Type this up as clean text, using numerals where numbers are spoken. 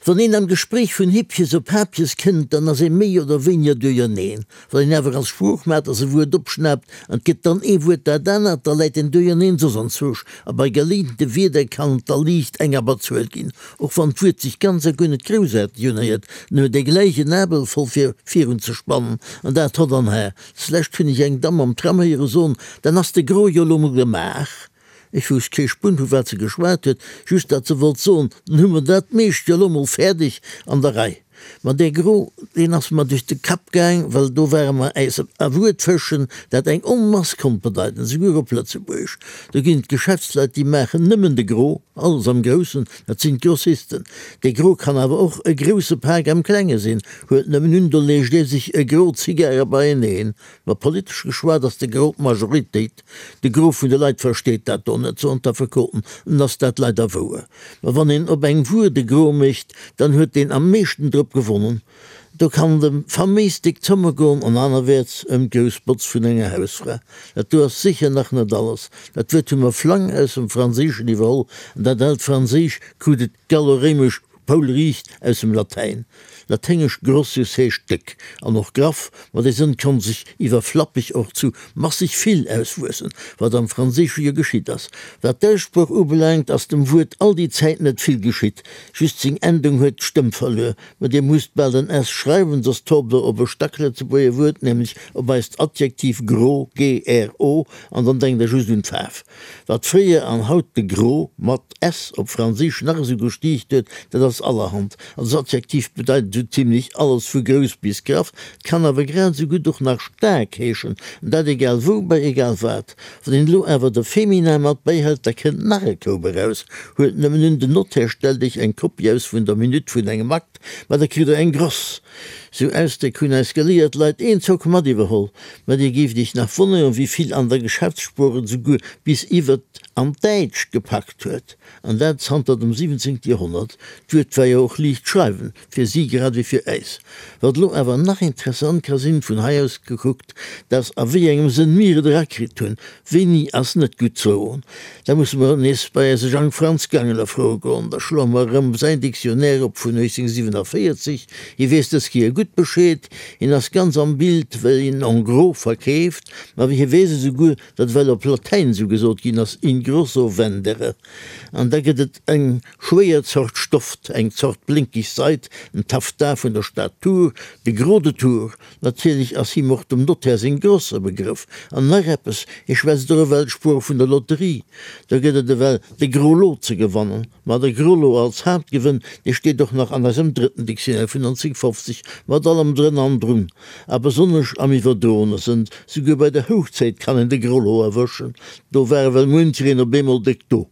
Wann een am Gespréich vun Hippjes op Hapjes kënnt, dann ass ee méi oder wéiniger duerjerneen. Wann een awer als Sproochmaters e Wuert opschnaapt an et gëtt dann ee Wuert dat anert, da läit een duerjerneen soss anzwousch a bei geleente Wierder kann et da liicht eng Abberzuel ginn, och wann d'Wuert sech ganz a guer net groussaarteg unhéiert, en huet ee gläich en Abel voll fir virun ze spannen an dat hott an har. Zlescht hunn ech eng Damm am Tram héiere soen, Dann ass de Gros jo lo mol gemaach. Ech wousst kee Spunn vu wat se geschwat huet, just dat se wollt soen, dann hu mer dat meescht jo lo mol fäerdeg an der Rei. Ma dee Gros, deen ass mer duerch de Kapp gaang, well do ware mer äis a Wuert fëschen, dat eng Onmass konnt bedeiten, souguer op Lëtzebuergesch. Do ginn et Geschäftsleit, déi maachen nëmmen de Gros, alles am Groussen, dat sinn d'Grossisten. Dee Gros kann awer och e grousse Pak am Klenge sinn, huelt nëmmen un, do leescht ee sech e Gros Zigare beieneen. Ma politesch geschwat ass de Gros d'Majoritéit. De Gros vun de Leit versteet dat do net, soen d'Affekoten, an ass dat leider wouer. Ma wann een op eng Wuer de Gros mécht, dann huet deen am meeschten drop gewonnen. Do kann et ëm faméis déck Zomme goen an anerwäerts ëm d'grouss Botz vun enger Hausfra. Dat do ass sécher nach net alles. Dat Wuert hu mer flang aus dem Franséischen iwwerholl, an dat aalt Franséisch krut et gallo-réimesch poulriicht aus dem Latäin. Laténgesch grossius heescht déck an och graff, ma dee Sënn konnt sech iwwer flappeg och zu masseg vill auswuessen, wat am Franséische jo geschitt ass. Wat d'Aussprooch ubelaangt, ass dem Wuert all déi Zäit net vill geschitt, just seng Endung huet d'Stëmm verluer. Ma dir musst bal den s schreiwen, soss taucht der op e Stacklëtzebuerger Wuert, nämlech op eist Adjektiv gro, g-r-o, an dann denkt der just un d'Faarf. Wat fréier an haut de Gros mat s op Franséisch nach esou gestiicht huet, dat ass allerhand. Als Adjektiv bedeit et esou zimlech alles vu grouss bis graff, et kann awer grad esou gutt och nach staark heeschen, an dat egal wou, bei egal wat. Wann een elo awer de Feminin mat bäihält, da kënnt nach e Koup eraus. Huelt nëmmen un, den Notaire stellt iech eng Kopie aus vun der Minutt vun engem Akt, ma da kritt der eng gross. Sou Ausdréck hunn eis geléiert Leit eenzock mat iwwerholl. Ma dir géift iech nach wonneren, wéi vill an der Geschäftssprooch et esouguer bis iwwert an d'Däitscht gepackt huet. An dat zanter dem 17. Joerhonnert. D'Wuert war jo och liicht schreiwen, fir si grad ewéi fir äis. Wat elo awer nach interessant ka sinn, vun hei aus gekuckt, dat a wéi engem Sënn mir et erakritt hunn, wéini ass net gutt zoen. Da musse mer nees bei eise Jang Franz Gangeler froe goen. Da schloe mer erëm säin Dictionnaire op vun 1847. Hie weess dës Kéier gutt Bescheed. Hien ass ganz am Bild, well hien en gros verkeeft. Ma hie weess esouguer, datt ewell op Latäin esou gesot ginn ass, in grosso vendere. An da gëtt et eng schwéier Zort Stoft, eng Zort blénkeg Seid, en Taffetas vun der Stad Tours, de Gros de Tours. Natierlech ass him och dem Notaire seng Gross e Begrëff. An nach eppes, hie schwätzt och ewell d'Sprooch vun der Lotterie. Do gëtt et ewell de Gros Lot ze gewannen. Ma de Gros Lot als Haaptgewënn, dee steet och nach an eisem drëtten Dictionnaire vun 1950, mat allem drënn an drun. A besonnesch am iwwerdroene Sënn, souguer bei der Hochzäit kann een de Gros Lot erwëschen. Do war ewell muenchereen op eemol déck do.